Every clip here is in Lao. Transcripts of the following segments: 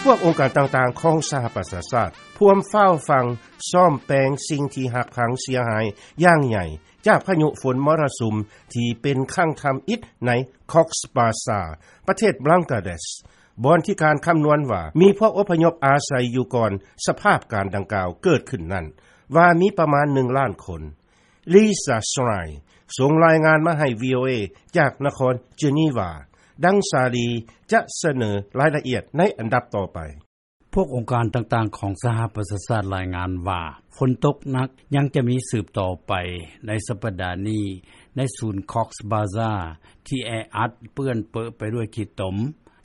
ພວກອົງການຕ່າງໆຂອງສະຫະປະຊາຊາດ ພວມຟ້າວຟັ່ງ ສ້ອມແປງສິ່ງທີ່ຫັກພັງເສຍຫາຍຢ່າງໃຫຍ່ ຈາກພາຍຸຝົນມໍຣະສຸມ ທີ່ເປັນຄັ້ງທຳອິດໃນ Cox's Bazar ປະເທດບັງກາເດສ ບ່ອນທີ່ການຄຳນວນວ່າ ມີພວກອົບພະຍົບອາໄສຢູ່ກ່ອນສະພາບການດັ່ງກ່າວເກີດຂຶ້ນນັ້ນ ວ່າມີປະມານ ໜຶ່ງລ້ານຄົນ. Lisa Schlein ສົ່ງລາຍງານມາໃຫ້ VOA ຈາກນະຄອນເຈນີວາ. ດັ່ງສາລີຈະສະເໜີລາຍລະອຽດໃນອັນດັບຕໍ່ໄປ. ພວກອົງການຕ່າງໆຂອງສະຫະປະຊາຊາດລາຍງານວ່າ ຝົນຕົກໜັກຍັງຈະມີສືບຕໍ່ໄປໃນສັປດານີ້ ໃນສູນ Cox's Bazar ທີ່ແອອັດເປື້ອນເປິະໄປດ້ວຍຂີ້ຕົມ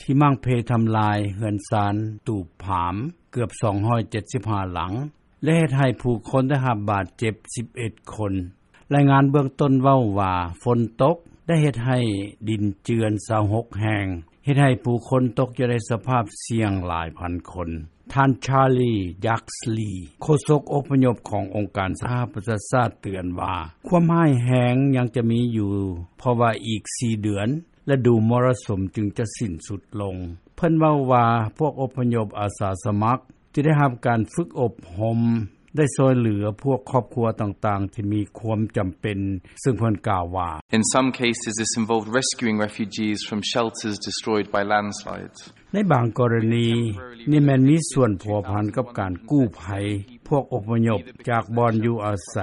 ທີ່ໝັ້ງເພທຳລາຍເຮືອນຊານຕູບຜາມເກືອບ ສອງຮ້ອຍເຈັດສິບຫ້າ ຫຼັງ ແລະເຮັດໃຫ້ຜູ້ຄົນໄດ້ຮັບບາດເຈັບ ສິບເອັດຄົນ. ລາຍງານເບື້ອງຕົ້ນເວົ້າວ່າ ຝົນຕົກໄດ້ເຮັດໃຫ້ດິນເຈື່ອນ ຊາວຫົກແຫ່ງ ເຮັດໃຫ້ຜູ້ຄົນຕົກຢູ່ໃນສະພາບສ່ຽງຫຼາຍພັນຄົນ. ທ່ານ Charlie Yaxley ໂຄສົກອົບພະຍົບຂອງອົງການສະຫະປະຊາຊາດເຕືອນວ່າ ຄວາມຮ້າຍແຮງຍັງຈະມີຢູ່ ເພາະວ່າອີກສີ່ເດືອນ ລະດູມໍຣະສຸມຈຶ່ງຈະສິ້ນສຸດລົງ. ເພິ່ນເວົ້າວ່າ ພວກອົບພະຍົບອາສາສະໝັກ ທີ່ໄດ້ຮັບການຝຶກອົບຮົມ ໄດ້ຊ່ວຍເຫຼືອພວກຄອບຄົວຕ່າງໆທີ່ມີຄວາມຈຳເປັນ, ເຊິ່ງເພິ່ນກ່າວວ່າ: In some cases, this involved rescuing refugees from shelters destroyed by landslides. ໃນບາງກໍລະນີ ນີ້ແມ່ນມີສ່ວນພົວພັນກັບການກູ້ໄພພວກອົບພະຍົບຈາກບ່ອນຢູ່ອາໄສ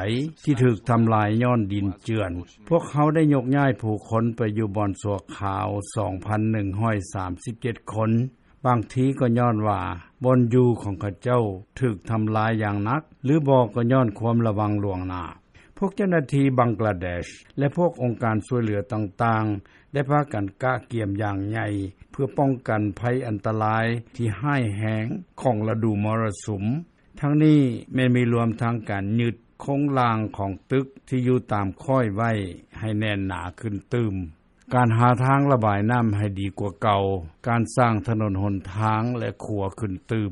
ທີ່ຖືກທຳລາຍຍ້ອນດິນເຈື່ອນ. ພວກເຮົາໄດ້ຍົກຍ້າຍຜູ້ຄົນໄປຢູ່ບ່ອນຊົ່ວຄາວ ສອງພັນໜຶ່ງຮ້ອຍສາມສິບເຈັດຄົນ. ບາງທີກໍຍ້ອນວ່າບ່ອນຢູ່ຂອງເຂົາເຈົ້າຖືກທຳລາຍຢ່າງໜັກ ຫຼືບໍ່ກໍຍ້ອນຄວາມລະວັງລ່ວງໜ້າ. ພວກເຈົ້າໜ້າທີ່ບັງກລາເດຊ ແລະ ພວກອົງການຊ່ວຍເຫຼືອຕ່າງໆ ໄດ້ພາກັນກະກຽມຢ່າງໃຫຍ່ ເພື່ອປ້ອງກັນໄພອັນຕະລາຍທີ່ຮ້າຍແຮງຂອງລະດູມໍຣະສຸມ. ທັງນີ້ແມ່ນມີລວມທັງການຍຶດໂຄງລ່າງຂອງຕຶກທີ່ຢູ່ຕາມຄ້ອຍໄວ້ໃຫ້ແໜ້ນໜາຂຶ້ນຕື່ມ. ການຫາທາງລະບາຍນ້ຳໃຫ້ດີກວ່າເກົ່າ, ການສ້າງຖະໜົນຫົນທາງ ແລະ ຂົວຂຶ້ນຕື່ມ.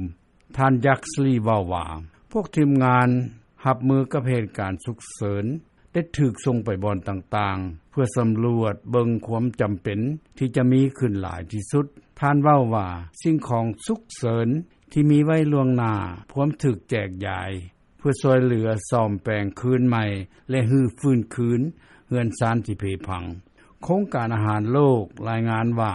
ທ່ານ Yaxley ເວົ້າວ່າ ພວກທີມງານຮັບມືກັບເຫດການສຸກເສີນ ໄດ້ຖືກສົ່ງໄປບ່ອນຕ່າງໆ ເພື່ອສຳຫຼວດເບິ່ງຄວາມຈຳເປັນທີ່ຈະມີຂຶ້ນຫຼາຍທີ່ສຸດ. ທ່ານເວົ້າວ່າ ສິ່ງຂອງສຸກເສີນທີ່ມີໄວ້ລ່ວງໜ້າ ພວມຖືກແຈກຢາຍ ເພື່ອຊ່ວຍເຫຼືອສ້ອມແປງຄືນໃໝ່ ແລະ ຮື້ຟື້ນຄືນເຮືອນຊານທີ່ເພພັງ. ໂຄງການອາຫານໂລກລາຍງານວ່າ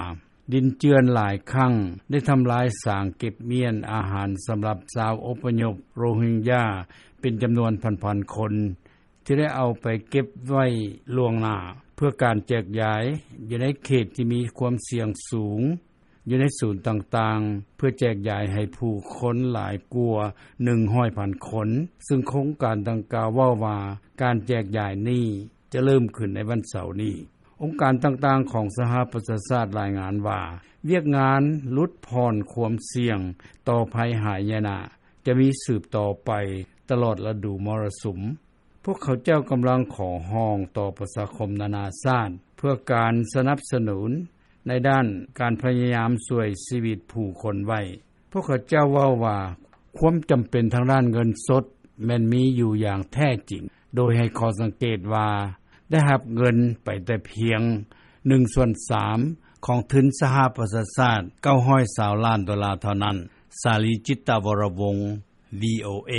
ດິນເຈື່ອນຫຼາຍຄັ້ງໄດ້ທຳລາຍສາງເກັບມ້ຽນອາຫານສຳລັບຊາວອົບພະຍົບໂຣຮິງຢາເປັນຈຳນວນພັນໆຄົນ ທີ່ໄດ້ເອົາໄປເກັບໄວ້ລ່ວງໜ້າ ເພື່ອການແຈກຢາຍຢູ່ໃນເຂດທີ່ມີຄວາມສ່ຽງສູງ ຢູ່ໃນສູນຕ່າງໆ ເພື່ອແຈກຢາຍໃຫ້ຜູ້ຄົນຫຼາຍກວ່າ ໜຶ່ງຮ້ອຍພັນຄົນ, ເຊິ່ງໂຄງການດັ່ງກ່າວເວົ້າວ່າ ການແຈກຢາຍນີ້ຈະເລີ່ມຂຶ້ນໃນວັນເສົານີ້. ອົງການຕ່າງໆຂອງສະຫະປະຊາຊາດລາຍງານວ່າ ວຽກງານຫຼຸດຜ່ອນຄວາມສ່ຽງຕໍ່ໄພຫາຍະນະ ຈະມີສືບຕໍ່ໄປຕະຫຼອດລະດູມໍລະສຸມ. ພວກເຂົາເຈົ້າກຳລັງຂໍຮ້ອງຕໍ່ປະຊາຄົມນານາຊາດ ເພື່ອການສະໜັບສະໜູນໃນດ້ານການພະຍາຍາມຊ່ວຍຊີວິດຜູ້ຄົນໄວ້. ພວກເຂົາເຈົ້າເວົ້າວ່າ ຄວາມຈຳເປັນທາງດ້ານເງິນສົດແມ່ນມີຢູ່ຢ່າງແທ້ຈິງ, ໂດຍໃຫ້ຂໍ້ສັງເກດວ່າ ໄດ້ຮັບເງິນໄປແຕ່ພຽງໜຶ່ງສ່ວນສາມຂອງທຶນສະຫະປະຊາຊາດ ເກົ້າຮ້ອຍຊາວລ້ານໂດລາເທົ່ານັ້ນ. ສາລີ ຈິດຕະວໍລະວົງ ວີໂອເອ.